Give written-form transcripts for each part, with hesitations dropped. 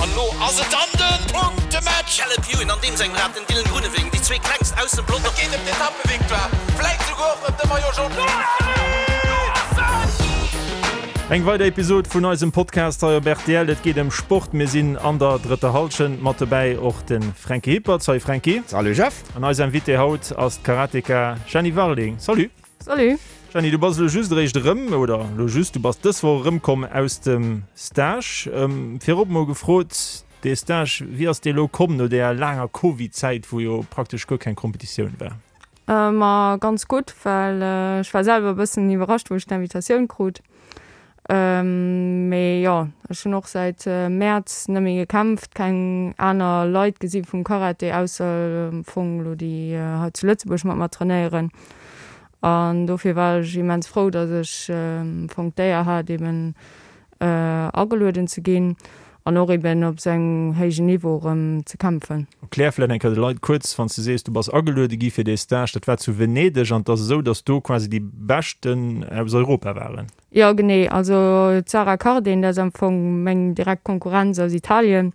An elo ass et dann de Punktematch! Caleb Ewan an deem sengem Rad, den Dylan Groenewegen, déi zwee klengst aus dem Pelotong. Et geet ëm d'Etappevictoire, vläit souguer och ëm de Maillot Jaune. Eng weider Episod vun eisem Podcast hei op rtl. Et geet ëm Sport. Mir sinn an der drëtter Hallschent. Mat dobäi och de Franky Hippert. Salut Franky. Salut Jeff. An eis Invitée haut ass d'Karateka Jeanny Warling. Salut. Salut. Jeanny, du bass elo just eréischt erëm, oder elo just, du bass dës Woch erëmkomm aus dem Stage. Virop mol gefrot, dee Stage, wéi ass dee elo komm no där laanger Covid-Zäit, wou jo praktesch guer keng Kompetitioun war? Ma ganz gutt, well ech war selwer e bëssen iwwerrascht, wou ech d'Invitatioun krut. Mee jo, ech hunn och säit Mäerz net méi gekämpft, keng aner Leit gesi vum Karate, ausser am Fong elo déi hei zu Lëtzebuerg mat mer trainéieren. An dofir war ech immens frou, datt ech am Fong d'Éier hat eben agelueden ze ginn an och eben op esou engem héijen Niveau erëm ze kämpfen. Erklär vläicht eng Kéier de Leit kuerz, wann s de sees, du bass ageluede gi fir dee Stage, dat war zu Venedeg an et ass esou, datt do quasi déi Beschten aus Europa waren. Jo genee, also d'Sara Cardin, dat ass am Fong meng direkt Konkurrenz aus Italien,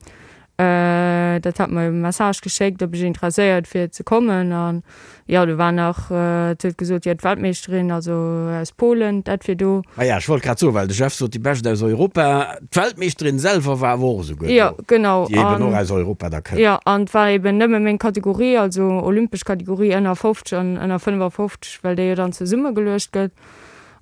dat hat mer e Message geschéckt, ob ech interesséiert wier ze kommen an jo do war nach, et huet gesot, jo d'Weltmeeschterin, also aus Polen, dat wier do. Ah ja, ech wollt grad soen, well de Jeff sot déi Bescht aus Europa, d'Weltmeeschterin selwer war awer och esouguer do, Jo genau, déi eben och aus Europa da kënnt. Jo an et war eben nëmme meng Kategorie, also olympesch Kategorie ënner 50 an ënner 55, well déi jo dann zesummegeluecht gëtt.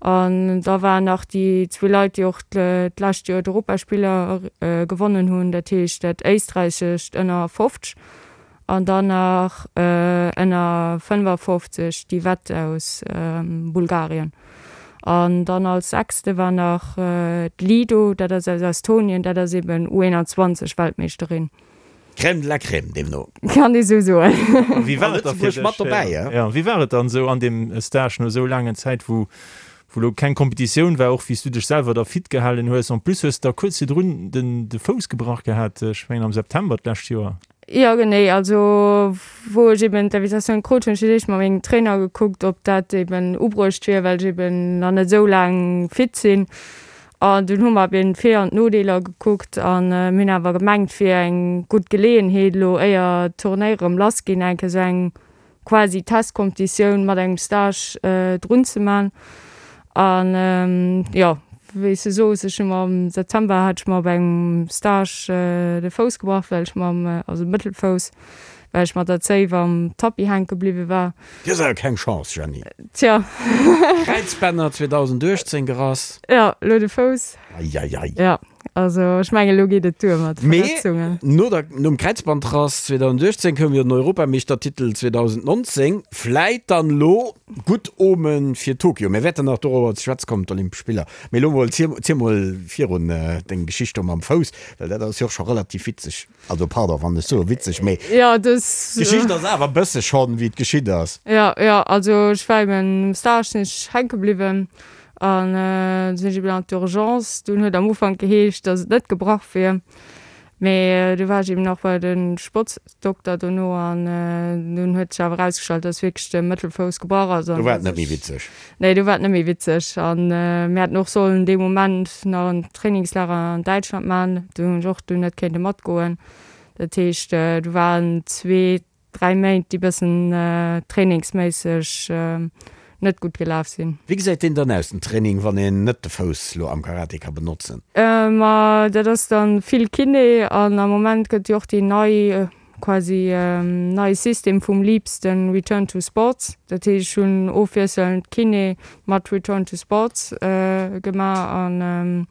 An da waren nach déi zwee Leit, déi och d'lescht Joer d'Europaspiller gewonnen hunn, dat heescht dat éisträichescht ënner 50 an dann nach ënner 55 d'Yvette aus Bulgarien. An dann als sechste war nach d'Lido, dat ass aus Estonien, dat ass eben U21 Weltmeeschterin. Crème de la Crème deemno. Kann ee sou soen. A wéi war et da fir Lëtzebuerg mat dech, dobäi, ja? Ja, wéi war et dann esou an deem Stage no esou laangen Zäit, wou wou lo keng Kompetitioun war, och wéi s du dech selwer da fit gehalen hues? En plus hues de da kuerz virdrun den de Fouss gebrach gehat, ech mengen am September d'lescht Joer. Jo genee, also wou ech eben d'Invitatioun krut hunn, ech fir d'éischt mat mengem Trainer gekuckt, ob dat eben ubruecht wier, well ech eben nach net esou laang fit sinn. An dunn hu mer eben d'Vir an d'Nodeeler gekuckt an mir hunn awer gemengt, et wier eng gutt Geleeënheet elo, éier d'Turnéiere erëm lass ginn, eng Kéier esou eng quasi Testkompetitioun mat engem Stage drun ze man. An jo, wéi s de soos, ech hu mer am September hat ech mer op engem Stage de Fouss gebrach, well ech mam, also de Mëttelfouss, well ech mat der Zéif am Tapis hänke bliwwe war. Du hues awer keng Chance, Jeanny. Tja. Kräizbänner 2018 gerass. Jo, elo de Fouss. Eieiei. Jo, also ech mengen, elo geet et duer mat de Verletzungen. Mee no der, nom Kräizbandrass 2018 koum jo den Europameeschtertitel 2019. Vläit dann elo gutt Omen fir Tokio. Mir wäerten nach dorobber ze schwätze kommen, d'Olympesch Spiller. Mee elo mol, ziel mol virun deng Geschicht do mam Fouss, well dat ass jo och scho relativ witzeg. Also pardon wann ech soe witzeg, mee Ja, dës. d'Geschicht ass awer bësse schonn wéi et geschitt ass. Ja, ja, also ech war eben um Stage sinn ech hänke bliwwen an sinn ech eben an d'Urgence. Dunn huet am Ufank geheescht, datt et net gebrach wier, mee du war ech eben nach bei de Sportsdokter dono an dunn huet sech awer erausgestallt, datt wierklech de Mëttelfouss gebrach ass Do an war et net méi witzeg. Nee, do war et net méi witzeg. An mir hätten och sollen dee Moment nach en Trainingslager an Däitschland man. Do hunn ech och dunn net kéinte matgoen. Dat heescht, do waren zwee, dräi Méint, déi bëssen trainingsméisseg net gutt gelaf sinn. Wéi gesäit deen dann aus, den Training, wann een net de Fouss lo am Karate ka benotzen? Ma dat ass dann vill Kiné an am Moment gëtt jo och déi nei quasi neie System vum Leaps, den Return to Sports. Dat heescht, ech hunn ofwiesselnd Kiné mat Return to Sports gemaach an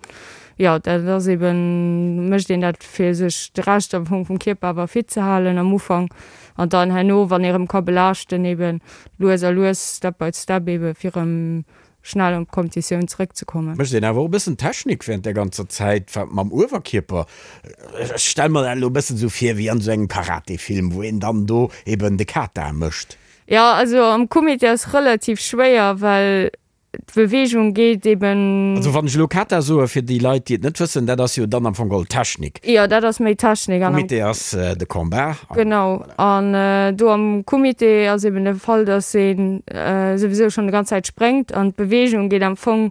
jo, dat ass eben, mécht een dat fir sech de Rescht am Fong vum Kierper awer fit ze halen am Ufank an dann herno, wann ee rëm ka belaaschten, eben lues a lues, step by step eben, fir rëm schnell an d'Kompetitioun zeréckzekommen. Mécht een awer och e bëssen Technik während där ganzer Zäit, wat mam Uewerkierper, ech stelle mer dat elo e bëssen esou vir wéi an esou engem Karate-Film, wou een dann do eben de Kata mécht. Jo, also am Kumite ass relativ schwéier, well d'Beweegung geet eben. Also wann ech elo Kata soe fir déi Leit, déi et net wëssen, dat ass jo dann am Fong geholl Technik. Jo, dat ass méi Technik. An am. Kumite ass de Combat. Genau, an do am Kumite ass eben de Fall, dass ee souwisou schonn déi ganz Zäit spréngt an d'Beweegung geet am Fong.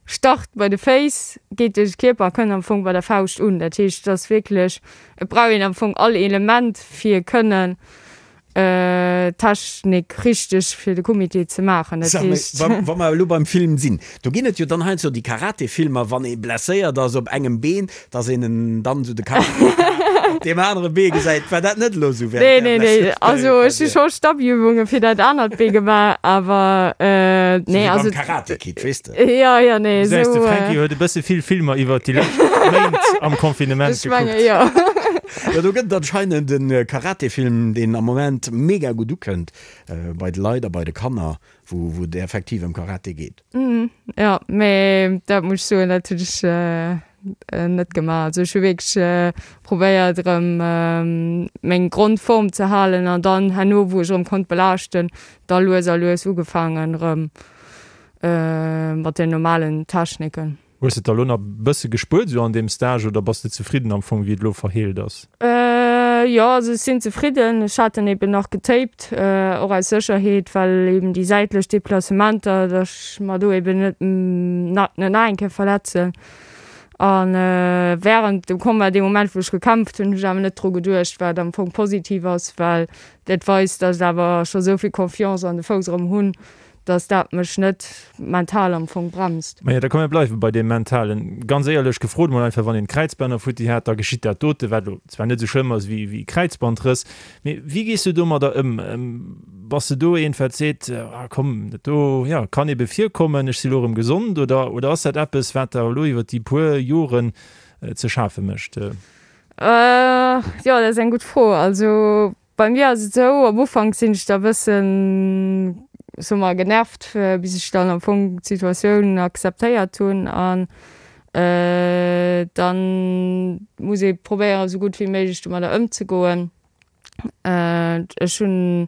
Start bei de Féiss, geet duerch de Kierper a kënnt am Fong bei der Fauscht un. Dat heescht, et ass wierklech, et brauch een am Fong all Element fir kënnen d'Technik richteg fir de Kumite ze maachen. Dat Sag mol, heescht. wa, wa mer elo beim Film sinn, do ginn et jo dann heiansdo déi Karate-Filmer, wann ee blesséiert ass op engem Been, dass een en dann esou de Karateka op deem anere Bee gesäit. War dat net elo esou während Nee, nee, nee. Also ech hu scho Stabiübunge fir dat anert Bee gemaach, awer nee, also. Wéi beim Karate Kid, weess de. Jo, jo, nee, Du gesäis, de esou. Franky huet e bësse vill Filmer iwwert déi lescht Méint am Confinement Ech menge gekuckt. jo. Jo, do gëtt et anscheinend e Karate-Film, deen am Moment mega gutt ukënnt bei de Leit a bei de Kanner, wou wou et effektiv ëm Karate geet. Jo, mee dat muss ech soen, dat hunn ech net gemaach. Also ech hu wierklech probéiert erëm meng Grondform ze halen an dann herno, wou ech erëm konnt belaaschten, da lues a lues ugefaangen erëm mat den normalen Techniken. Hues de et da lo nach bësse gespuert esou an deem Stage oder bass de zefridden am Fong wéi et lo verheelt ass? Jo, also ech sinn zefridden. Ech hat en eben nach getaped, och aus Sécherheet, well eben déi säitlech Deplacementer, datt ech mer do eben net net nach eng Kéier verletzen. A wärend dem Combat, dee Moment wou ech gekämpft hunn, hunn ech awer net dru geduecht, wat am Fong positiv ass, well dat weist, datt ech awer scho sou vill Confiance an de Fouss erëm hunn, dass dat mech net mental am Fong bremst. Majo, da komm mir bleiwe bei deem Mentalen. Ganz éierlech gefrot mol einfach, wann een Kräizbänner futti hat, da geschitt dat dote, wat elo zwar net esou schlëmm ass wéi wéi Kräizbandrëss, mee wéi gees du domadder ëm? Bass de do eent wat seet, ah komm, dat do, jo, kann ebe virkommen, ech si lo erëm gesond, oder oder ass dat eppes wat der elo iwwer déi puer Joren ze schafe mécht? Jo, dat ass eng gutt Fro. Also Bei mir ass et esou, am Ufank sinn ech da bëssen, soe mer, genervt, bis ech dann am Fong d'Situatioun akzeptéiert hunn an dann muss ee probéieren, esou gutt wéi méiglech domadder ëmzegoen. Ech hunn,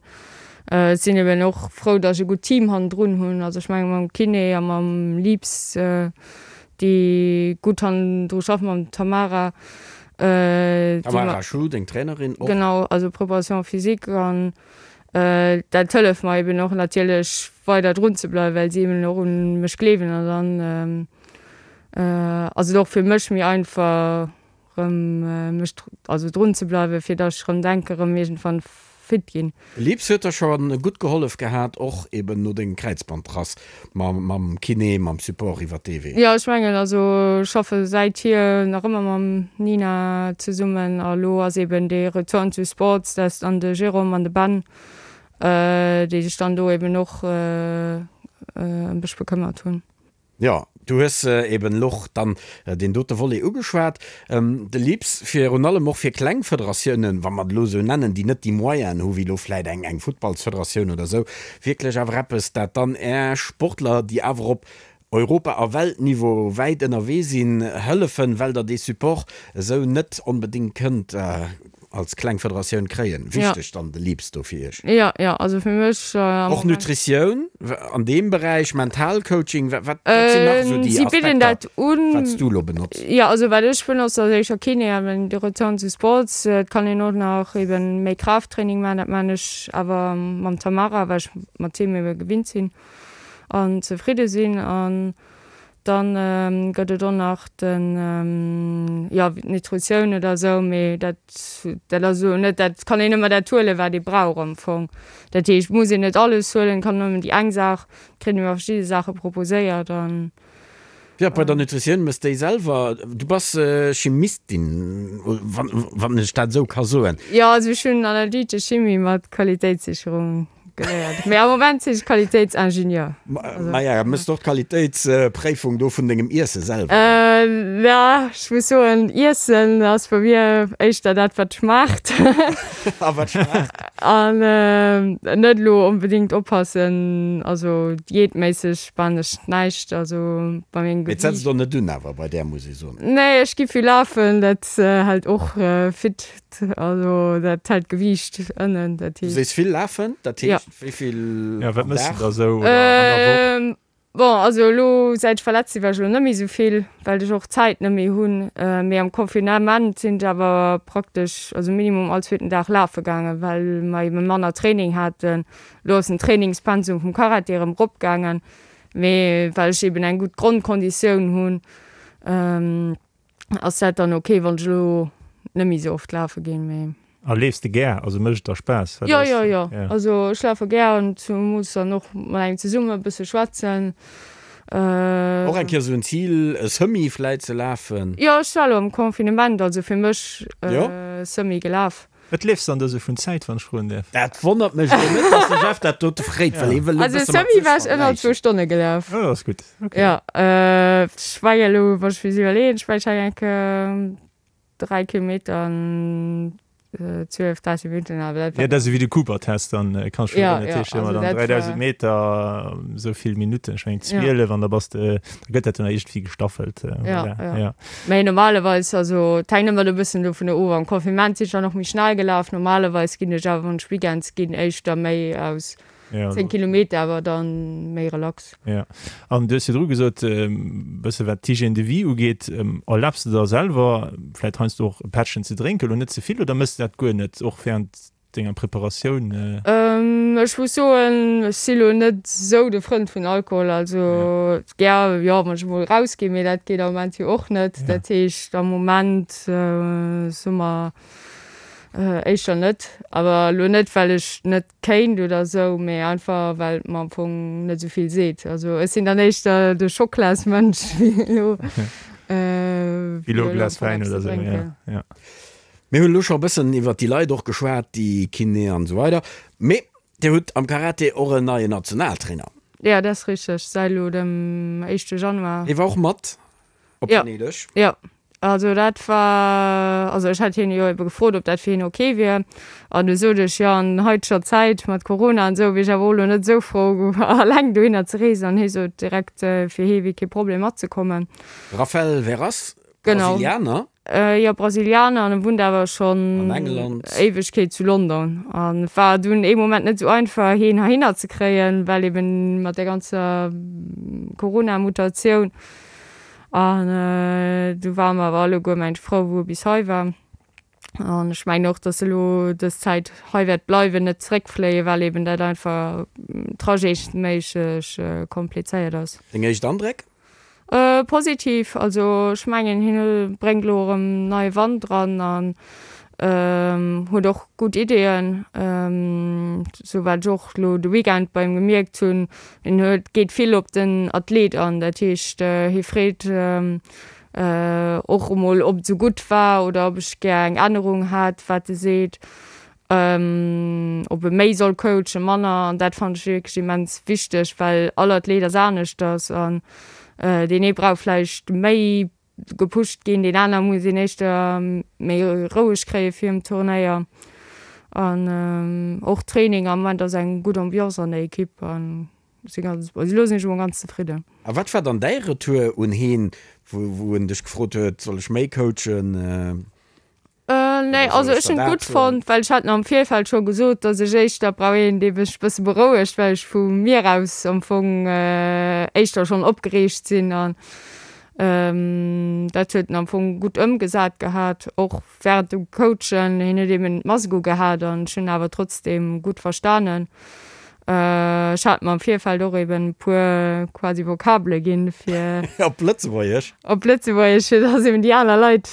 ech sinn eben och frou, datt ech e gutt Team hannendrun hunn, also ech menge mam Kiné a mam Lips, déi gutt hannendru schaffen, mam Tamara. Tamara Schuh, deng Trainerin och. Genau, also Préparation physique an dat hëlleft mer eben och natierlech weider drun ze bleiwen, well si eben och un mech gleewen an dann ass et och fir mech méi einfach rëm mech also drun ze bleiwen, fir datt ech rëm denke rëm iergendwann fit ginn. Lips huet der scho gutt gehollef gehat, och eben no dengem Kräizbandrass mam Kiné, mam Support iwwert dee Wee. Jo, ech mengen, also ech schaffe säithier nach ëmmer mam Nina zesummen a lo ass eben dee Return to Sports, dat ass dann de Jérôme an de Ben, déi sech dann do eben och ëm mech bekëmmert hunn. Jo, du hues eben elo och dann deen dote Volet ugeschwat. De LIPS, virun allem och fir kleng Federatiounen, wa mer et elo esou nennen, déi net déi Moyenen hu wéi elo vläit eng eng Futtballsfederatioun oder esou, wierklech awer eppes, dat dann Är Sportler, déi awer op Europa a Weltniveau wäit ënnerwee sinn, hëllefen, well Der dee Support esou net onbedéngt kënnt als kleng Federatioun kréien. Wichteg dann de LIPS do fir Iech? Jo, jo, also fir mech am Och Nutritioun an deem Beräich, Mentalcoaching, wat wat sinn nach esou déi Si bidden Aspekter, dat un. wat s du elo benotz? Jo, also wat ech benotz ass éischer Kiné an de Return to Sports. Et kann een och nach eben méi Kraafttraining maachen, dat maachen ech awer mam Tamara, well ech mat him ebe gewinnt sinn an zefridde sinn. An Dann gëtt et och nach den, jo, d'Nutritioun oder esou, mee dat, dat ass elo net, dat kann een ëmmer dat huelen, wat ee brauch am Fong. Dat heescht, et muss een net alles huelen, et kann nëmmen déi eng Saach, kritt een ëmmer verschidde Saache proposéiert an. Jo, bei der Nutritioun méchs déi selwer. Du bass Chimistin, wann, wann ech dat esou ka soen. Jo, also ech hunn analytesch Chimie mat Qualitéitssicherung Geléiert. Mee am Moment sinn ech Qualitéitsingenieur. Maja, mëss de och d'Qualitéitspréifung do vun dengem Iesse selwer? Ja, ech muss soen, Iessen ass bei mir éischter dat, wat schmaacht. A wat schmaacht? An net elo onbedéngt oppassen, also diätméisseg maan ech näischt, also bei mengem Mee et Gewiicht. setzt och net un awer bei där, muss ee soen. Nee, ech gi vill lafen, dat hält och fit. Also dat hält d'Gewiicht ënnen, dat Du heescht. sees vill lafen, dat Ja. heescht wéi vill Ja, wat am mëss de Dag? da sou oder an der Woch? Ähm, bon, also elo säit ech verletzt sinn, war ech elo net méi sou vill, well ech och d'Zäit net méi hunn. Mee am Confinement sinn ech awer praktesch, also minimum all zweeten Dag lafe gaangen, well mer ebe manner Training haten. Elo ass den Trainingspensum vum Karate erëm eropgaangen. Mee well ech eben eng gutt Grondkonditioun hunn, ass dat dann ok, wann ech elo net méi esou oft lafe ginn. Mee. A leefs de gär? Also mécht et der Spaass? Jo, jo, jo. Also ech lafe gär an zemools dann och mat engem zesummen e bësse schwätzen. Och eng Kéier esou en Zil, e Semi vläit ze lafen? Jo, ech war elo am Confinement, also fir mech Semi gelaf. Wat leefs dann do sou vun Zäit, wann ech froen däerf? Dat wonnert mech elo net, dass de Jeff dat dote fréit, well hie wëll elo e Also bësse mat Semi sech war ech ënner zwou vergläichen. Stonne gelaf. Oh, dat ass gutt, ok. Jo, ech war jo elo, wann ech mech iwwerleeën, ech war ech eng Kéier 3 Kilometer an 12, 13 Minutten, awer dat war. Jo, dat ass ewéi de Cooper-Test, dann kanns du Ja, dat ja, heescht ëmmer also dann dat 3000 war. Meter esou vill Minutten, ech mengen Ja. 12, an da bass de, da gëtt dat dann iergendwéi gestaffelt, Ja, voilà, ja. ja. Mee normalerweis, also et hänkt ëmmer e bëssen dovun of, am Confinement sinn ech dann och méi schnell gelaf, normalerweis ginn ech awer, wann ech Weekends ginn, éischter méi aus Ja, 10 Kilometer, awer dann méi relax. Ja, an du hues virdru gesot, e bësse wat d'Hygiène de vie ugeet, erlaabs de der selwer vläit heiansdo och e Pättchen ze drénken, elo net ze vill, oder méchs de dat guer net, och während denger Preparatioun? Ech muss soen, ech si lo net esou de Frënd vun Alkohol, also gär, jo, wann ech emol erausginn, mee dat geet am Moment jo och net. Dat heescht am Moment soe mer éischter net, awer elo net well ech net kéint oder esou, mee einfach well et mer am Fong net esou vill seet. Also ech sinn dann éischter de Schoklasmënsch wéi elo wéi elo e Glas Wäin oder esou, ja, ja. Mir hunn elo scho e bëssen iwwert déi Leit och geschwat, déi Kiné an esou weider, mee Dir hutt am Karate och en neien Nationaltrainer. Jo, dat ass richteg, säit elo dem éischte Januar. Hie war och mat Op Ja. Venedeg? Jo, also dat war, also ech hat hien jo ebe gefrot, ob dat fir hien ok wier. An du sot ech, jo an haiteger Zäit mat Corona an esou wier ech awer och elo net esou frou alleng dohinner ze reesen. An hie sot direkt, fir hie wier kee Problem matzekommen. Rafael Veras, Genau. Brasilianer? Jo, Brasilianer an e wunnt awer schonn An England. Éiwegkeet zu London. An et war dunn ee Moment net esou einfach hien heihinner ze kréien, well eben mat der ganzer Corona-Mutatioun. An du ware mer awer alleguer mengt frou wou e bis hei war. An ech mengen och, datt e lo dës Zäit hei wäert bleiwen, net zeréckfléien, well eben dat einfach trajetsméisseg komplizéiert ass. Deng éischt Andréck? Positiv, also ech mengen hien bréngt elo erëm neie Wand dran an huet och gutt Ideeën, sou wat ech och elo de Weekend bei him gemierkt hunn. Hien huet, geet vill op den Athlet an, dat heescht hie freet och emol ob et sou gutt war oder ob ech gär eng Ännerung hätt, wat e seet. Ob e méi soll coachen, manner, an dat fannen ech wierklech immens wichteg, well all Athlet ass aneschters an deen ee brauch vläicht méi gepusht ginn, deen aner muss een éischter méi roueg kréie virum Turnéier. An och Training, am Moment ass eng gutt Ambiance an der Ekipp an ech si ganz, also elo sinn ech emol ganz zefridden. A wat war dann däi Retour un heen, wou en dech gefrot huet, soll ech méi coachen? Nee, also ech hunn et gutt fonnt, well ech hat am Virfeld scho gesot, datt ech éischter brauch een, dee mech e bësse berouegt, well ech vu mir aus am Fong éischter schonn opgereegt sinn. An dat huet en am Fong gutt ëmgesat gehat, och wärend dem Coachen. Hien huet eben d'Mask ugehat an ech hunn awer trotzdeem gutt verstanen. Ech hat mer am Virfeld och eben e puer quasi Vokabele ginn, fir. Op Lëtzebuergesch? Op Lëtzebuergesch, fir dass eben déi aner Leit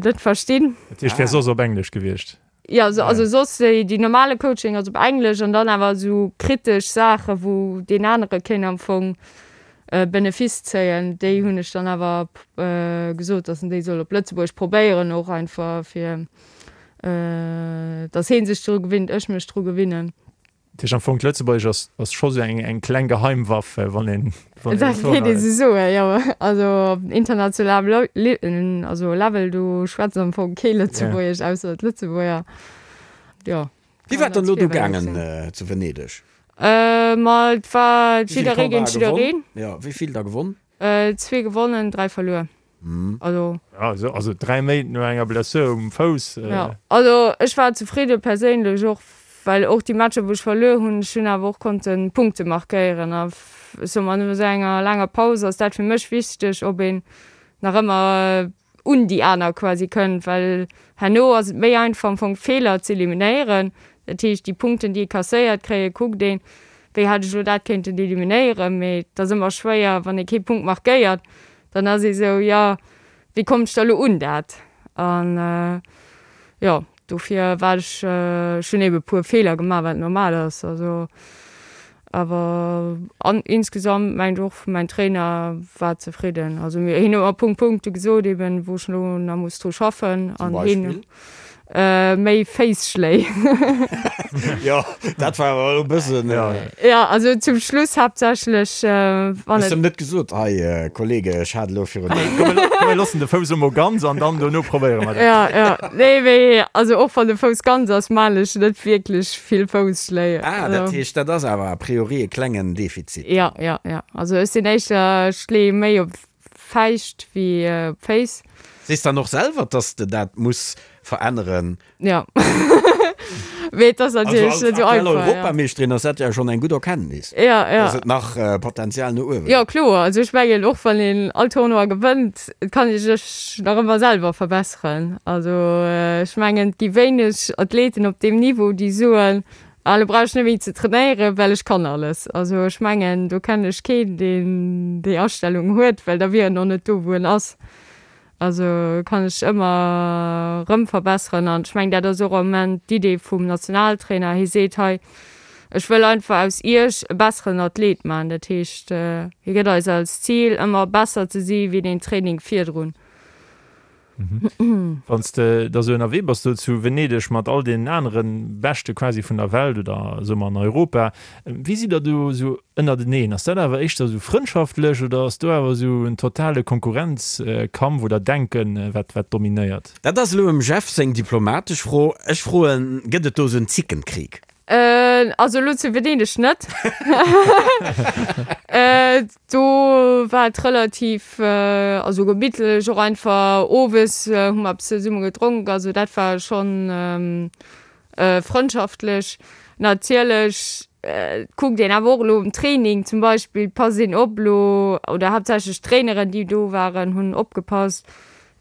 dat verstinn. Dat heescht, wär soss op Englesch gewiescht? Jo, also soss déi, déi normale Coaching ass op Englesch an dann awer esou kritesch Saache wou deen anere kéint am Fong Benefice zéien, déi hunn ech dann awer gesot, dass en déi soll op Lëtzebuergesch probéieren, och einfach fir dass hee sech dru gewinnt, ech mech dru gewinnen. Dat heescht am Fong, d'Lëtzebuergesch ass, ass scho sou eng, eng kleng Geheimwaff, wann een, wann een Dat kéint ee sou soen, jo. Also op internationalem Le, also Level, do schwätzt am Fong kee Lëtzebuergesch, ausser d'Lëtzebuerger. Jo. Wéi war et dann elo do gaangen zu Venedeg? Ma et war jidderee géint jiddereen. Jo, wéi vill da gewonn? Zwee gewonnen, 3 verluer. Also. Ja, also 3 Méint no enger Blessur um Fouss. Ja, also ech war zefridde perséinlech och, well och déi Matcher wou ech verluer hunn, ech hunn awer och konnte Punkte markéieren a ech soe mer, no esou enger laanger Paus ass dat fir mech wichteg, ob een nach ëmmer un déi aner quasi kënnt, well herno ass et méi einfach am Fong Feeler z'eliminéieren. Dat heescht déi Punkten déi ee kasséiert kréie kuckt een. Wéi hätt ech elo dat kéinten eliminéieren? Mee et ass ëmmer schwéier, wann ee kee Punkt markéiert, dann ass ee sou, jo, wéi kommt ech da elo un dat? An jo, dofir war ech, ech hunn ebe puer Feeler gemaach, wat normal ass, also awer an insgesamt mengt och mäin Trainer war zefridden. Also mir, hien huet mer Punkt Punkte gesot eben, wou ech elo nach muss dru schaffen Zum an hien Beispill? Méi Féisschléi. Jo, dat war awer elo e bëssen. Jo, also zum Schluss haaptsächlech, wann et. Hues de em net gesot, hei Kollege, ech hat elo virun. Komm, mir loossen de Fouss emol ganz an dann dono probéiere mer dat. Jo, jo, nee, mee also och wann de Fouss ganz ass, maan ech net wierklech vill Fousschléi. Ah, dat heescht, dat ass awer a priori e klengen Defizit. Jo, jo, jo, also ech sinn éischter, ech leeë méi op Fäischt wéi Féiss. Sees dann och selwer, dass de dat muss veränneren? Jo. Mee et ass natierlech net esou einfach. Also als aktuell Europameeschterin ass dat jo schonn eng gutt Erkenntnis, ja, ja. dass et nach Potenzial no uewe gëtt. Jo, kloer. Also ech mengen, och wann een all Tournoi gewënnt, et kann ee sech nach ëmmer selwer verbesseren. Also ech mengen, et gi wéineg Athleten op deem Niveau, déi soen, Ah, lo brauch ech net méi ze trainéieren, well ech kann alles. Also ech mengen, do kennen ech keen, deen déi Astellung huet, well da wier en och net do, wou en ass. Also kann ech ëmmer erëm verbesseren an ech mengen, dat ass och am Moment d'Idee vum Nationaltrainer. Hie seet hei, ech wëll einfach aus iech e besseren Athlet maachen. Dat heescht, hie gëtt eis als Zil, ëmmer besser ze si wéi deen Training virdrun. Wann s de da sou ënnerwee bass do zu Venedeg mat all deenen anere Beschte quasi vun der Welt oder soe mer an Europa, wéi sidd der do sou ënnerteneen? Ass dat awer éischter sou frëndschaftlech oder ass do awer sou en totale Konkurrenzkampf oder Denken, wat wat dominéiert? Dat ass elo em Jeff seng diplomatesch Fro. Ech froen, Gëtt et do sou en Zickenkrieg? Also elo zu Venedeg net. Do war et relativ, also gemittlech, och einfach owes hu mer eppes zesumme gedronk, also dat war schonn frëndschaftlech. Natierlech kuckt een awer och elo um Training zum Beispill, passt een op elo, oder haaptsächlech d'Traineren déi do waren hunn opgepasst,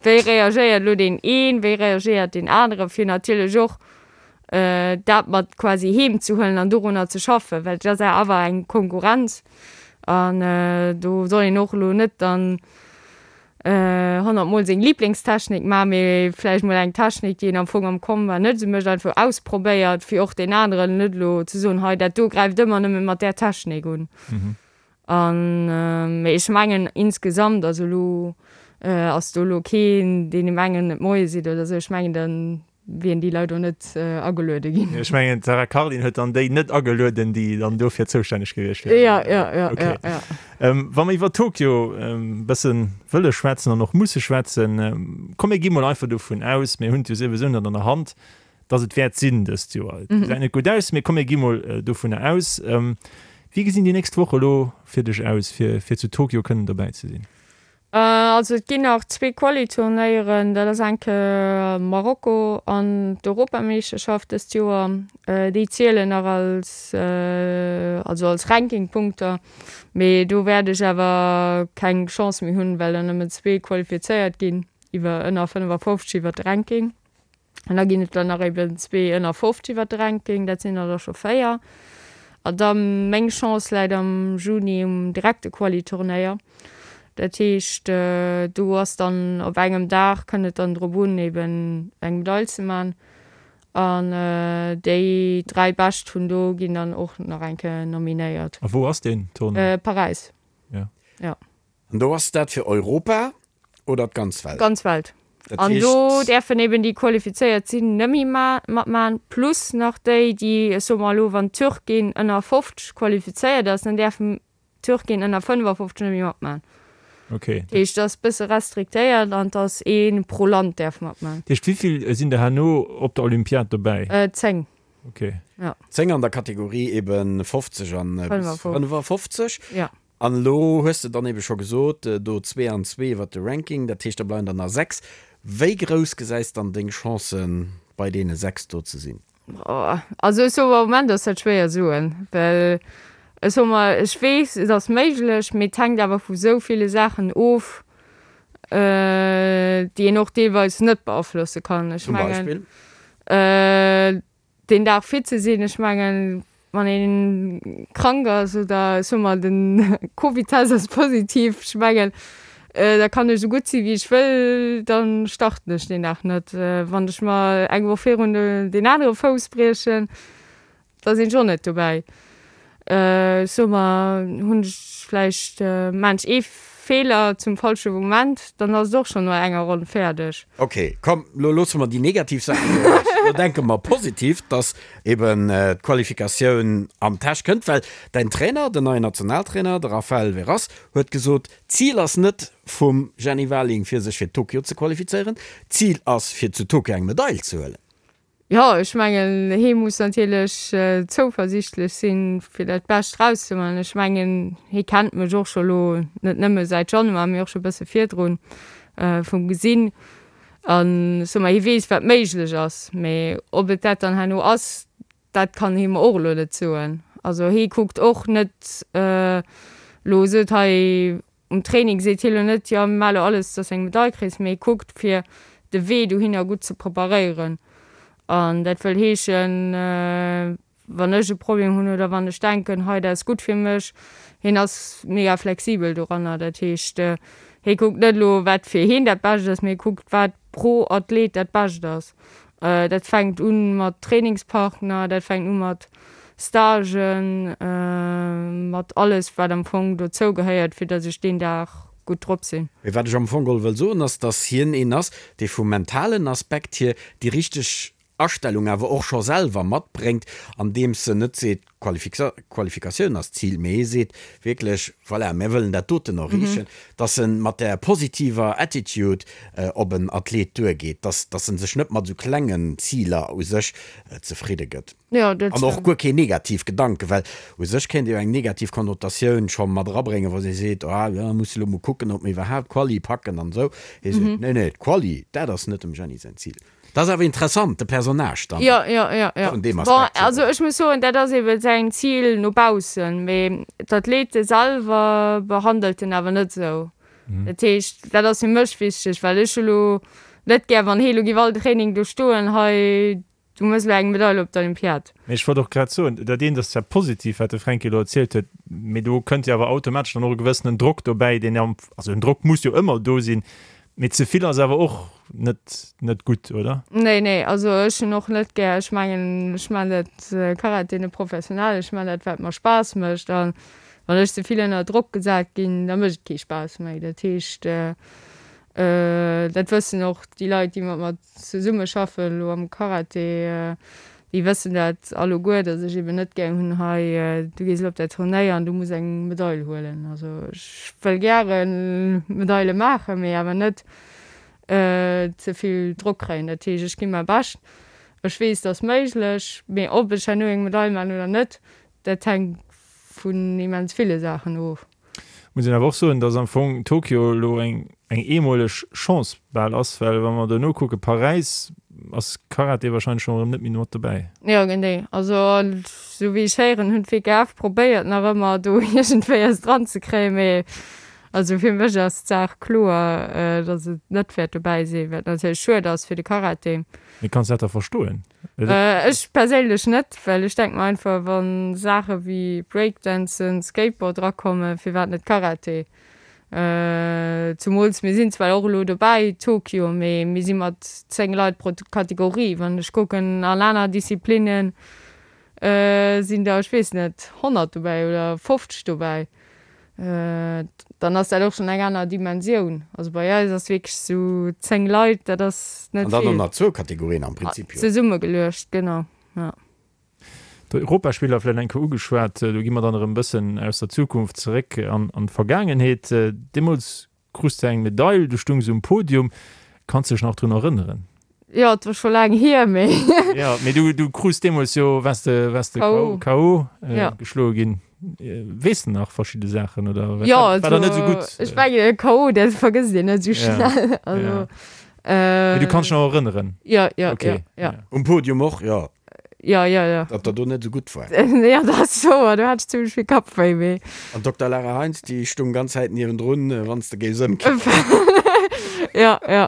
wéi reagéiert elo deen een, wéi reagéiert deen anere fir natierlech och dat mat quasi heem ze huelen an dorunner ze schaffen, well et ass awer eng Konkurrenz an do soll een och elo net dann 100 mol seng Lieblingstechnik maachen, mee vläicht mol eng Technik, déi een am Fong am Combat net esou mécht, einfach ausprobéiert, fir och deen aneren net elo ze soen, hei dat do gräift ëmmer nëmme mat där Technik un. An mee ech mengen insgesamt, also elo ass do elo keen, deen em engen et Moie seet oder esou, ech mengen dann wien déi Leit och net ageluede ginn. Ech mengen d'Sarah Cardin huet dann déi net agelueden, déi dann dofir zoustänneg gewiescht wieren. Ja, ja, ja, okay. ja, ja. Ähm, wa mer iwwer Tokio e bësse wëlle schwätzen an och musse schwätzen, komm mir gi mol einfach dovun aus, mir hunn et jo souwisou net an der Hand, datt et wäert sinn dëst Joer. Et gesäit net gutt aus, mee komm mir gi mol dovunner aus. Wéi gesinn déi nächst Woche elo fir dech aus, fir, fir zu Tokio kënnen dobäi ze sinn? Also et ginn nach zwee Quali-Turnéieren, dat ass eng Kéier Marokko an d'Europameeschterschaft dëst Joer. Déi zielen nach als, also als Rankingpunkter, mee do wäert ech awer keng Chance méi hunn, well der nëmmen zwee qualifizéiert ginn iwwer ënner 55 iwwer de Ranking. An da ginn et der nach eben zwee ënner 50 iwwer de Ranking, dat sinn der da scho véier. A da meng Chance läit am Juni um direkte Quali-Turnéier. Dat heescht, do ass dann op engem Dag, kënnt et dann drop un, eben eng Medail ze man. An déi dräi Bescht vun do ginn dann och nach eng Kéier nominéiert. A wou ass deen Tournoi? Paräis. Ja. Ja. An do ass dat fir Europa oder d'ganz Welt? D'ganz Welt. Dat An do däerfen eben déi qualifizéiert sinn nëmme matmachen, plus nach déi, déi, ech soe mer elo, wann d'Türkin ënner 50 qualifizéiert ass, dann däerfen d'Türkin ënner 55 nëmme matmachen. Okay. Dat heescht, et ass e bësse restriktéiert an et ass ee pro Land däerf matmachen. Dat heescht, wéi vill sinn der herno op der Olympiad dobäi? 10. Okay. Ja. 10 an der Kategorie eben 50 an bis 55. Ja. An elo hues de dann ebe scho gesot, do zwee an zwee iwwert de Ranking, dat heescht da bleiwen der nach 6. Wéi grouss gesäis dann deng Chancen bei deene 6 do ze sinn? Also ech soe mer, am Moment ass dat schwéier soen, well ech soe mer, ech weess et ass méiglech, mee et hänkt awer vu sou ville Saachen of, déi een och deelweis net beaflosse kann. Ech Zum mengen Beispill? deen Dag fit ze sinn, ech mengen. Wann een krank ass oder ech soe mol den Covid-Test ass positiv, ech mengen da kann ech esou gutt si wéi ech wëll, da starten ech deen Dag net. Wann ech mer eng Woch virun deen anere Fouss briechen, da sinn ech och net dobäi. Ech soe mer, hunn ech vläicht, maan ech ee Feeler zum falsche Moment, dann ass et och schonn no enger Ronn fäerdeg. Ok, komm, lo loosse mer déi negativ Saachen ewech. Lo denke mer positiv, dass eben d'Qualifikatioun an d'Täsch kënnt, well däin Trainer, den neien Nationaltrainer, de Raphael Veras, huet gesot, d'Zil ass net vum Jenny Warling, fir sech fir Tokio ze qualifizéieren, d'Zil ass, fir zu Tokio eng Medail ze huelen. Jo, ech mengen, hee muss natierlech zouversiichtlech sinn, fir dat Bescht rauszemaachen. Ech mengen, hee kennt mech och scho lo net nëmme säit Januar, mee och scho bësse virdrun vum Gesinn. An ech soe mer, hie weess, wat méiglech ass. Mee ob et dat dann herno ass, dat kann hie mer och elo net soen. Also hie kuckt och net elo, sot hei Um Training seet hie lo net, jo mir maache lo alles, dass eng Medail kriss, mee hie kuckt fir de Wee dohinner gutt ze preparéieren. An dat wëll heeschen, wann ech e Problem hunn oder wann ech denken, hei dat ass gutt fir mech, hien ass mega flexibel doranner. Dat heescht, hie kuckt net elo wat fir hien dat Bescht ass, mee hie kuckt wat pro Athlet dat Bescht ass. Dat fänkt u mat Trainingspartner, dat fänkt u mat Stagen, mat alles wat am Fong dozou gehéiert, fir datt ech deen Dag gutt drop sinn. Mee wat ech am Fong geholl wëll soen, ass, datt hien een ass, dee vum mentalen Aspekt hier déi richteg Astellung awer och scho selwer matbréngt, andeems en net seet, Qualifikatioun ass d'Zil, mee hie seet wierklech, voilà, mir wëllen dat doten erreechen, dass e mat där positiver Attitude op en Athlet duergeet, dass dass e sech net mat esou klengen Ziler u sech zefridde gëtt. An och guer keen negativ Gedanken, well u sech kéint ee jo eng negativ Konnotatioun scho mat erabréngen, wa si seet, ah jo, muss elo mol kucken, ob mir iwwerhaapt d'Quali packen an esou. Hie seet, nee, nee, d'Quali, dat ass net dem Jenny säin Zil. Dat ass awer interessant, de Personnage dann. Jo, jo, jo, jo. Vun deem Aspekt hier. Bon, also ech muss soen, dat ass eben säin Zil no baussen, mee d'Athlete selwer behandelt en awer net esou. Dat heescht, dat ass fir mech wichteg, well ech hu lo net gär, wann hee lo giff all Training do stoen, hei, du mëss elo eng Medail op der Olympiad. Mee ech wollt och grad soen, dat eent ass zwar positiv, wat de Fränki elo erzielt huet, mee do kënnt jo awer automatesch dann och e gewëssenen Drock dobäi, deen am, also en Drock muss jo ëmmer do sinn, Mee ze vill ass awer och net net gutt, oder? Nee, nee, also ech hunn och net gär, ech mengen, ech man dat Karate net professionell, ech man dat wat mer Spaass mécht an wann ech ze vill ënner Drock gesat ginn, da mécht et kee Spaass méi. Dat heescht, dat wëssen och déi Leit, déi mat mer zesumme schaffen elo am Karate, déi wëssen dat alleguer, datt ech eben net gär hunn, hei du gees elo op dat Turnéier an du muss eng Medail huelen. Also ech wëll gäre Medaile maachen, mee awer net ze vill Drock kréien. Dat heescht, ech gi mäi Bescht, ech weess, et ass méiglech, mee ob ech herno eng Medail maachen oder net, dat hänkt vun immens ville Saachen of. Muss een awer och soen, dass am Fong Tokio elo eng eng eemoleg Chance bal ass, well wa mer dono kucke Paräis, ass Karate wahrscheinlech schonn erëm net méi mat dobäi. Jo genee, also esou wéi ech héieren hunn d'WKF probéiert nach ëmmer do iergendwéi eis dran ze kréien, mee also fir mech ass d'Saach kloer, dass et net wäert dobäi sinn, wat natierlech schued ass fir de Karate. Mee kanns dat da verstoen? Ech perséinlech net, well ech denke mer einfach, wa Saache wéi Breakdancen, Skateboard erakommen, firwat net Karate? Zumools mir sinn zwar och elo dobäi, Tokio, mee mir si mat 10 Leit pro Kategorie. Wann ech kucken an aner Disziplinnen, sinn der, ech weess net, 100 dobäi oder 50 dobäi, dann ass dat och schonn eng aner Dimensioun. Also bei eis ass wierklech esou 10 Leit, dat ass net An dann vill. och nach zwou Kategorien am Prinzip, jo. Zesummegeluecht, genau, jo. D'Europaspiller vläicht eng Kéier ugeschwat, do gi mer dann erëm e bëssen aus der Zukunft zeréck an d'Vergaangenheet. Deemools Krus de eng Medail, du stungs um Podium. Kanns dech nach drun erënneren? Jo, et wor scho laang hier, mee. Jo, mee du, du krus deemools jo, waars de, waars de KO. KO Ja. geschloe ginn. Weess de nach verschidde Saachen oder Jo, war dat net also esou gutt? ech mengen e KO, dat vergësst een net esou Ja, schnell. Also, ja. Mee du kanns dech nach erënneren? Jo, jo, Okay, jo, jo. ja. Um Podium och, jo. Jo, jo, jo. Datt der do net esou gutt war. Jo, dat ass wouer, do hat ech zimmlech vill Kappwéi, mee. An d'Dokter Lara Heinz, déi stung ganz Zäit niewendrun, wann s de géifs ëmkippen. Jo, jo.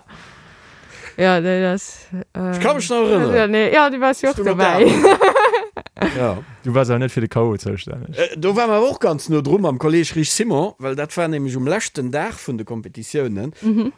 Jo, nee, dat. Ech ka mech nach erënneren. Jo, nee, jo, du waars jo och Stung op dobäi. der anerer Säit. Ja. Du waars awer net fir de K.O. zoustänneg. Do ware mer awer och ganz no dru mam Kolleeg Rich Simon, well dat war nämlech um leschten Dag vun de Kompetitiounen.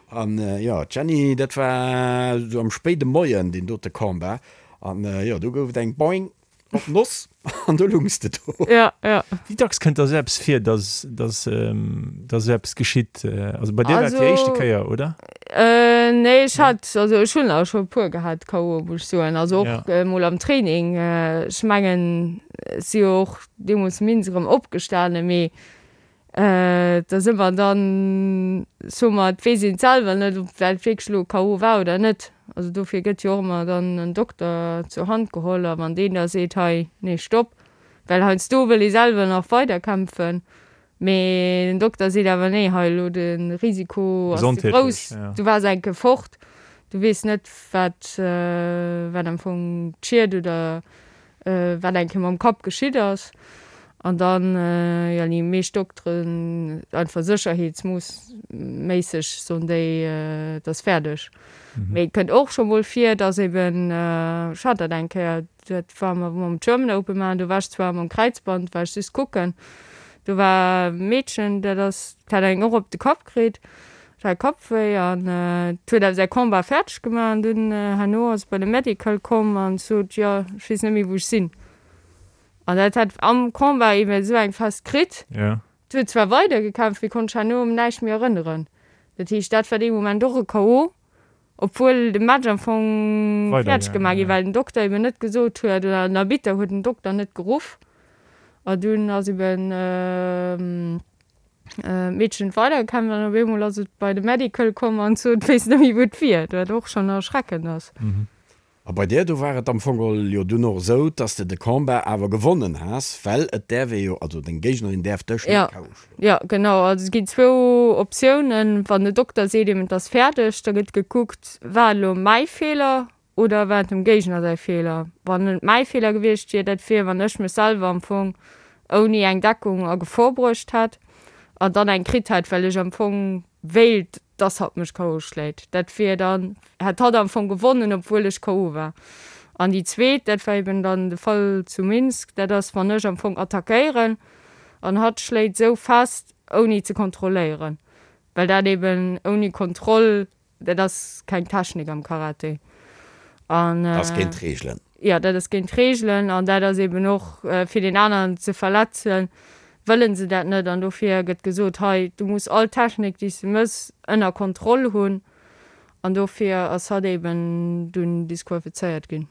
An jo, d'Jenny, dat war esou am spéide Moien deen dote Combat. An jo, do gouf et eng Boing op d'Noss an do lungs de do. Ja, ja. Wéi dacks kënnt da sou eppes vir, dass, dass, dass esou eppes geschitt? Also bei dir war et déi éischte Kéier, oder? Nee, ech hat, also ech hunn der scho e puer gehat, K.O. muss ech soen. Also och emol am Training. Ech mengen, ech si jo och deemools minst erëm opgestanen, mee da si mer dann, soe mer, et weess een et selwer net, ob dat wierklech elo K.O. war oder net. Also dofir gëtt jo och ëmmer dann en Dokter zur Hand geholl a wann deen da seet, hei, nee, stopp, well heiansdo wëll ee selwer nach weiderkämpfen, mee den Dokter seet awer, nee, hei elo de Risiko ass ze grouss, du waars eng Kéier fort, du weess net, wat, wat am Fong d'Schied oder wat eng Kéier mam Kapp geschitt ass. An dann, jo, déi meescht Dokteren, einfach sécherheetsmoossméisseg soen déi, et ass fäerdeg. Mee et kënnt och scho mol vir, dass eben, ech hat dat eng Kéier, dat war mer mam German Open maachen, do war ech zwar mam Kräizband, war ech just kucken, do war e Meedchen, dat ass, dat hat eng och op de Kapp kritt, Dat hat Kappwéi an et huet awer säi Combat fäerdeg gemaach an dunn herno ass et bei de Medical komm an sot, jo ech weess net méi wou ech sinn. An dat hat am Combat eben esou eng fest kritt. Et huet zwar weider gekämpft, mee konnt sech herno un näischt méi erënneren. Dat heescht dat war dee Moment och e KO, obwuel de Match am Fong fäerdeg gemaach gi war, well den Dokter eben net gesot huet oder den Arbitter huet den Dokter net geruff a dunn ass eben D'Meedchen huet weidergekämpft an op eemol ass et bei de Medical komm an sot, et wéisst net méi wou et wier, wat och schonn erschreckend ass. A bei dir, do war et am Fong geholl jo dunn och esou, dass de de Combat awer gewonnen has, well et däerf ee jo, also deng Géignerin däerf dech net KO schloen. Jo, genau. Also et ginn zwou Optiounen. Wann de Dokter seet eben, et ass fäerdeg, da gëtt gekuckt, war et elo mäi Feeler Oder war et dem Géigner säi Feeler? Wann et mäi Feeler gewiescht wier, dat wier, wann ech mech selwer am Fong ouni eng Deckung a Gefor bruecht hätt an dann eng kritt hätt, well ech am Fong wéilt, dass hatt mech KO schléit. Dat wier dann, hätt hatt am Fong gewonnen, obwuel ech KO war. An déi zweet, dat war eben dann de Fall zu Minsk, dat ass, wann ech am Fong attackéieren an hatt schléit esou fest, ouni ze kontrolléieren, well dat eben ouni Kontroll Dat ass keng Technik am Karate. An, dat ass géint d'Reegelen. Jo, dat ass géint d'Reegelen an dat ass eben och fir deen aneren ze verletzen, wëlle se dat net an dofir gëtt gesot, hei du muss all Technik déi s de mëss ënner Kontroll hunn an dofir ass hatt eben dunn disqualifizéiert ginn.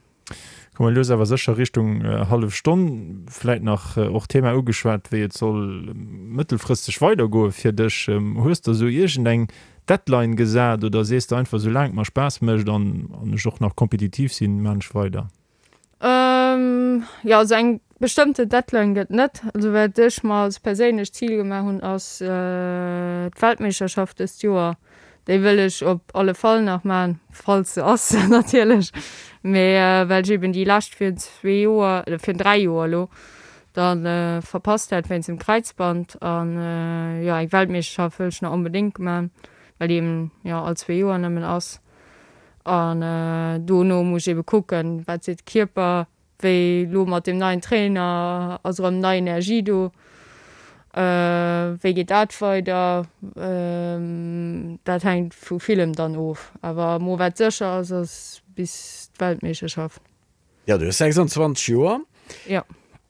Komme lues awer sécher Richtung hallef Stonn. Vläit nach och d'Thema ugeschwat, wéi et soll mëttelfristeg weidergoe fir dech. Hues de esou iergendeng Deadline gesat oder sees de einfach, soulaang et mer Spaass mécht an ech och nach kompetitiv sinn, maan ech weider? Jo, also eng bestëmmte Deadline gëtt net. Also wat ech mer als perséinlecht Zil gemaach hunn, ass d'Weltmeeschterschaft dëst Joer. Déi wëll ech op alle Fall nach maachen, falls se ass natierlech, mee well ech eben déi lescht virun zwee Joer, oder virun 3 Joer elo, da verpasst hat wéinst dem Kräizband. An jo, eng Weltmeeschterschaft wëll ech nach onbedéngt maachen, well déi eben jo all zwee Joer nëmmen ass. An dono muss ech ebe kucken, wat seet de Kierper, Wéi lo mat deem neien Trainer, ass erëm nei Energie do? Wéi geet dat weider? Dat hänkt vu villem dann of. Awer mo wat sécher ass, ass bis d'Weltmeeschterschaft. Jo, du hues 26 Joer. Jo.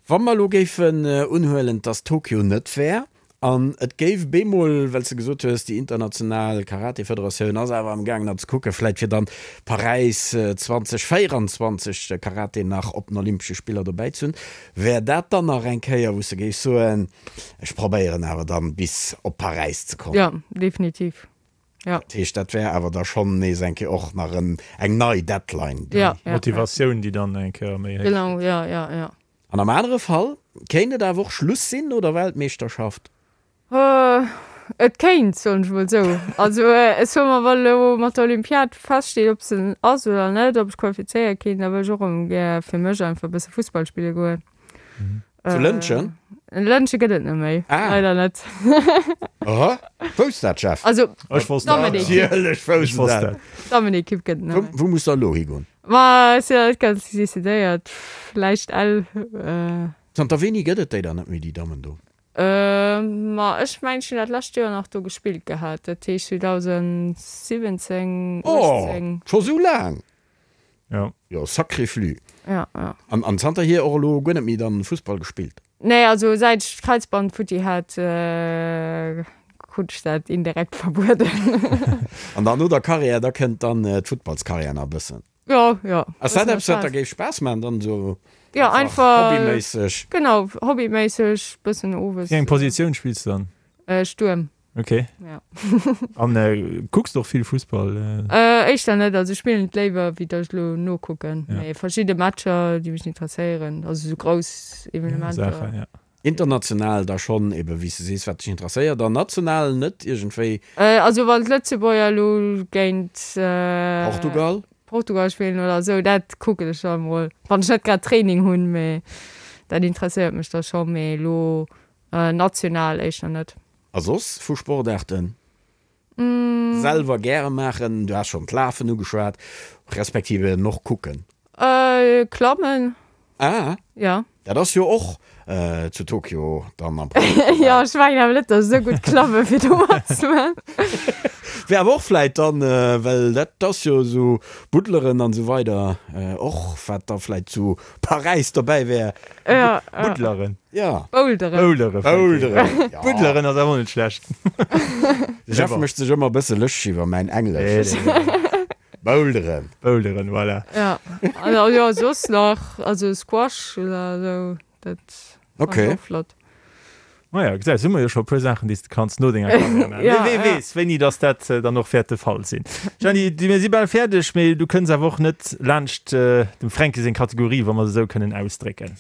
Wa mer elo géifen unhuelen, dass Tokio net wär, An et géif bemol, well s de gesot hues, déi international Karate-Federatioun ass awer am gaangen nach ze kucken, vläit fir dann Paräis 2024 de Karate nach op den Olympesche Spiller dobäi ze hunn. Wär dat dann nach eng Kéier, wou s de géifs soen, ech probéieren awer dann bis op Paräis ze kommen? Jo, definitiv, jo. Dat heescht, dat wär awer da schonn nees eng Kéier och nach en, eng nei Deadline, déi. Ja, ja. Motivatioun, déi dann eng Kéier méi héich gëtt. Genau, jo, jo, jo. An am anere Fall kéint et awer och Schluss sinn no der Weltmeeschterschaft. Et kéint, soen ech mol esou. Also ech soe mer, wa elo mat der Olympiad feststeet, ob se ass oder net, ob ech qualifizéiert ginn, da wëll ech och erëm gär fir mech einfach e bësse Fussball spille goen. Zu Lëntgen? Lëntge gëtt et net méi, leider net. Aha, wousst dat Jeff? Also Ech wosst dat. Natierlech wousst en dat. D'Dammenekipp gëtt et net méi. Wou muss der elo higoen? Ma ech sinn nach net ganz decidéiert. Vläicht Ell. Zanter wéini gëtt et déi dann net méi, déi Dammen do? Ma ech mengen, ech hunn dat lescht Joer nach do gespillt gehat. Dat heescht 2017, 18. Oh, scho sou laang? Jo. Jo, sacré flux. Ja, ja. An, an zanterhier och elo guer net méi dann Fussball gespillt? Nee, also säit ech d'Kräizband futti hat, krut ech dat indirekt verbueden. An dann no der Karriär, da kënnt dann d'Futtballskarriär nach e bëssen? Jo, jo. Ass dat eppes, wat der géif Spaass maachen, dann esou Ja, einfach hobbyméisseg? Genau, hobbyméisseg, bëssen owes. Wéi eng Positioun spills du dann? Stuerm. Ok. Ja. An kucks de och vill Fussball? Éischter net, also ech spillen et léiwer wéi datt ech elo nokucken. Ja. Mee verschidde Matcher déi mech interesséieren, also sou grouss Evenementer. Saachen, ja. International da schonn eben, wéi s de sees, wat dech interesséiert, an national net iergendwéi? Also wann d'Lëtzebuerger elo géint Portugal? Portugal spillen oder esou, dat kucken ech da mol, wann ech net grad Training hunn, mee dat interesséiert mech da scho, mee elo national éischter net. A soss vu Sportaarten? Selwer gäre maachen, du has schonn d'Lafen ugeschwat, respektiv eben och kucken. Klammen. Ah. Ja. Dat ass jo och zu Tokio dann am Programm dobäi. Jo, ech mengen awer net, datt ech esou gutt klamme fir do matzemaachen. Wär awer och vläit dann, well dat ass jo esou Buddleren an esou weider och wat da vläit zu Paräis dobäi wär. Ja, ja. Buddleren. Ja. Boulderen. Boulderen. Boulderen, ja. Buddleren ass awer och net schlecht. De Jeff mécht sech ëmmer e bësse lëschteg iwwer mäin Englesch. Boulderen. Boulderen, voilà. Ja, also jo, soss nach, also Squash oder esou, dat Okay. fand ech och flott. Maja, gesäis, hu mer jo scho e puer Saachen, déi s de kanns no denger Karriär maachen. Ja, Mee wee ja. weess, wéini dass dat dann och wäert de Fall sinn. Jeanny, du, mir si bal fäerdeg, mee du kënns awer och net laanscht dem Fränki seng Kategorie, wa mer se esou kënnen ausdrécken.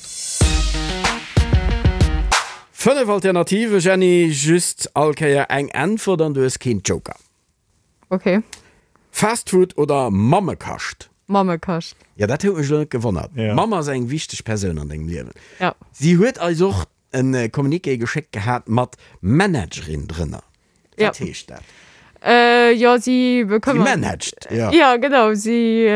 5 Alternative, Jeanny, just all Kéier eng Äntwert an du hues keen Joker. Ok. Fast Food oder Mammekascht? Mammekascht. Jo, dat huet mech elo net gewonnert. Ja. D'Mamm ass eng wichteg Persoun an dengem Liewen. Ja. Si huet eis och en Communiqué geschéckt gehat mat Managerin drënner. Ja. Wat heescht dat? Jo, si Si bekëmmert. managt, jo. Ja, genau, si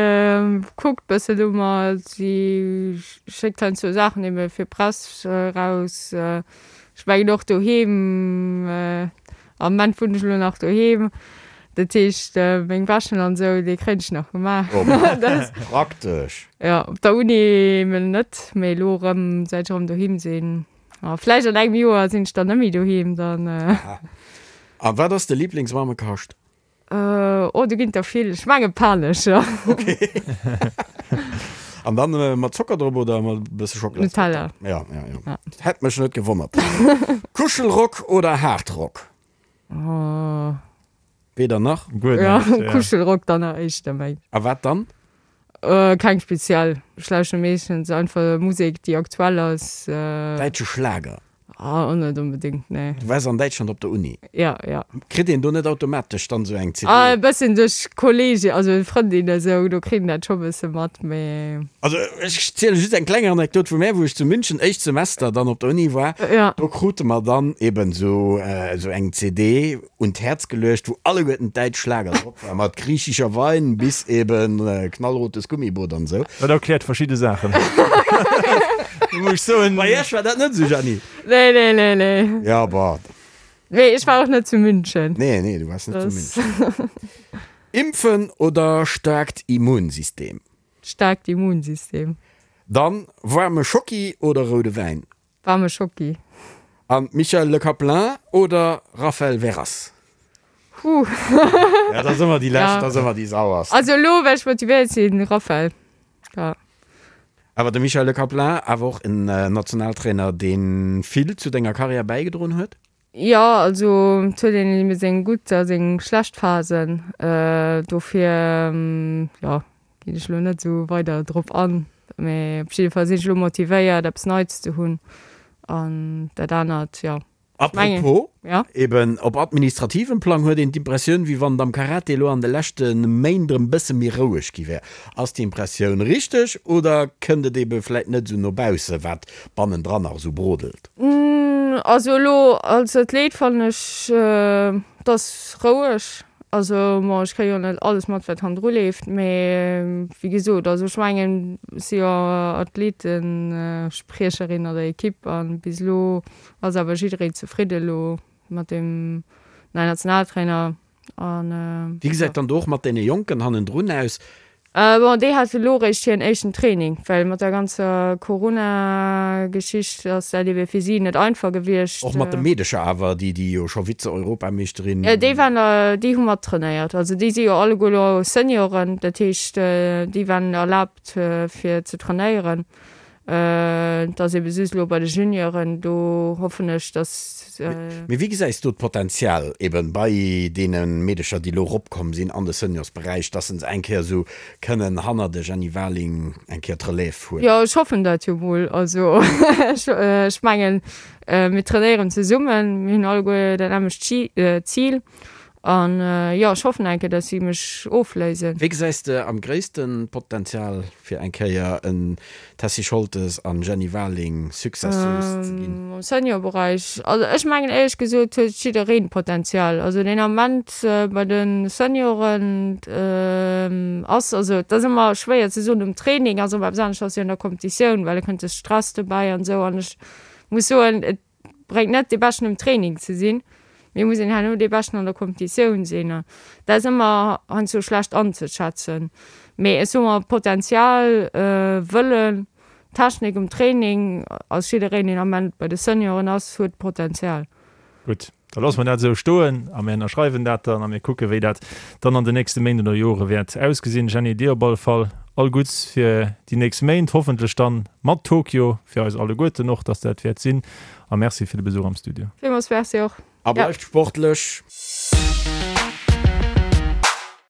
kuckt bëssen no mer, si schéckt heiansdo Saachen ebe fir Press raus. Ech mengen och doheem, am Moment wunnen ech elo nach doheem, dat heescht meng Wäschen an esou, déi kréien ech nach gemaach. Oh, praktesch. Jo, op der Uni emol net, mee elo erëm, säit ech erëm doheem sinn. A vläicht an engem Joer sinn ech dann net méi doheem, dann. A wat ass de Liblingsmammekascht? Oh, do ginn et der vill. Ech menge Panescher. Ok. An dann mat Zocker drop oder mat e bësse Schockela? Nutella. Ja, ja, ja. Hätt mech net gewonnert. Kuschelrock oder Hardrock? Oh. Weder nach? Guer Ja, näischt, ja. Kuschelrock dann nach éischter, meng. A wat dann? Keng speziell. Ech lauschteren meeschtens einfach Musek, déi aktuell ass. Däitsche Schlager? Ah, och net onbedéngt, nee. Du waars an Däitschland op der Uni? Ja, ja. Kritt een do net automatesch dann esou eng CD? Ah, e bëssen duerch Kollege, also Frëndin esou, do kritt een dat scho bësse mat, mee. Also ech ziele just eng kleng Anekdot vu mär, wou ech zu München éischt Semester dann op der Uni war. Ja. Do krute mer dann eben esou esou eng CD un d'Häerz geluecht, wou alleguerten d'däitsch Schlager drop waren, mat Griechischer Wein bis eben Knallrotes Gummiboot an esou. Dat erkläert verschidde Saachen, muss ech soen. Bei iech war dat net esou, Jeanny? Nee, nee, nee, nee. Ja, bah. Nee, ech war och net zu München. Nee, nee, du waars net zu München. Impfen oder staarkt Immunsystem? Staarkt Immunsystem. Dann waarme Schocki oder roude Wäin? Waarme Schocki. An Michel Le Caplin oder Raphaël Verras? Huh. Ja, dat ass ëmmer déi lescht, Ja. dat ass ëmmer déi sauerst. Also elo, well ech motivéiert sinn, Raphaël. Ja. Awer de Michel Le Caplin, awer och en Nationaltrainer, dee vill zu denger Karriär bäigedroen huet? Jo, also et huet een ebe seng gutt a seng schlecht Phasen. Dofir, jo, ginn ech elo net esou weider drop an. Mee op jidde Fall sinn ech elo motivéiert, eppes Neits ze hunn an dat anert, jo. Apropos, Ja. eben op administrativem Plang huet een d'Impressioun, wéi wann et am Karate elo an de leschte Méint erëm bësse méi roueg gi wär. Ass déi Impressioun richteg oder kënnt et ebe vläit net esou no bausse, wat bannendran nach esou brodelt? Also elo als Athlet fannen ech, et ass roueg. Also bon, ech kréie jo net alles mat, wat hannendru leeft, mee wéi gesot, also ech mengen, ech si jo Athletespriecherin an der Ekipp a bis elo ass awer jiddereen zefridde elo mat dem neien Nationaltrainer an Wéi gesäit dann do och mat deene Jonken hannendrun aus? Bon, déi hate lo réischt hiren éischten Training, well mat der ganzer Corona-Geschicht ass dat ebe fir si net einfach gewiescht. Och mat de Meedecher awer, déi déi jo scho Vize-Europameeschterin. Déi waren, déi hu mat trainéiert. Also déi si jo alleguer lo Senioren, dat heescht déi waren erlaabt fir ze trainéieren. Et ass ebe just elo bei de Junioren, do hoffen ech, dass. Mee wéi gesäis du d'Potenzial eben bei deene Meedecher, déi elo eropkomm sinn an de Seniorsberäich, dass se eng Kéier esou kënnen hannert de Jenny Warling eng Kéier d'Relève huelen? Jo, ech hoffen dat jo mol. Also ech mengen, mir trainéieren zesummen, mir hunn alleguer dat nämmlecht Zil An jo, ech hoffen eng Kéier, dass si mech ofléisen. Wéi gesäis de am gréissten Potenzial fir eng Kéier en Tessy Scholtes an Jenny Warling Successeuse ze ginn? Am Seniorberäich? Also ech mengen éierlech gesot huet jiddereen Potenzial. Also deen Ament bei de Senioren ass, also et ass ëmmer schwéier ze soen um Training ass ëmmer eppes anescht ass wéi an der Competitioun, well da kënnt de Stress dobäi an esou an ech muss soen et bréngt net dee Beschten um Training ze sinn, mee muss een herno dee Beschten an der Competitioun sinn. An dat ass ëmmer heiansdo schlecht anzeschätzen. Mee ech soe mer, Potenzial, Wëllen, Technik um Training, ass jiddereen deen Ament bei de Senioren ass, huet Potenzial. Gutt, da loosse mer dat esou stoen a mir ënnerschreiwen dat dann a mir kucke wéi dat dann an den nächste Méint oder Jore wäert ausgesinn. Jeanny, dir op alle Fall all Gutts fir déi nächst Méint, hoffentlech dann mat Tokio fir eis alleguerten och, dass dat wäert sinn. A Merci fir de Besuch am Studio. Villmools Merci och. A bleift sportlech!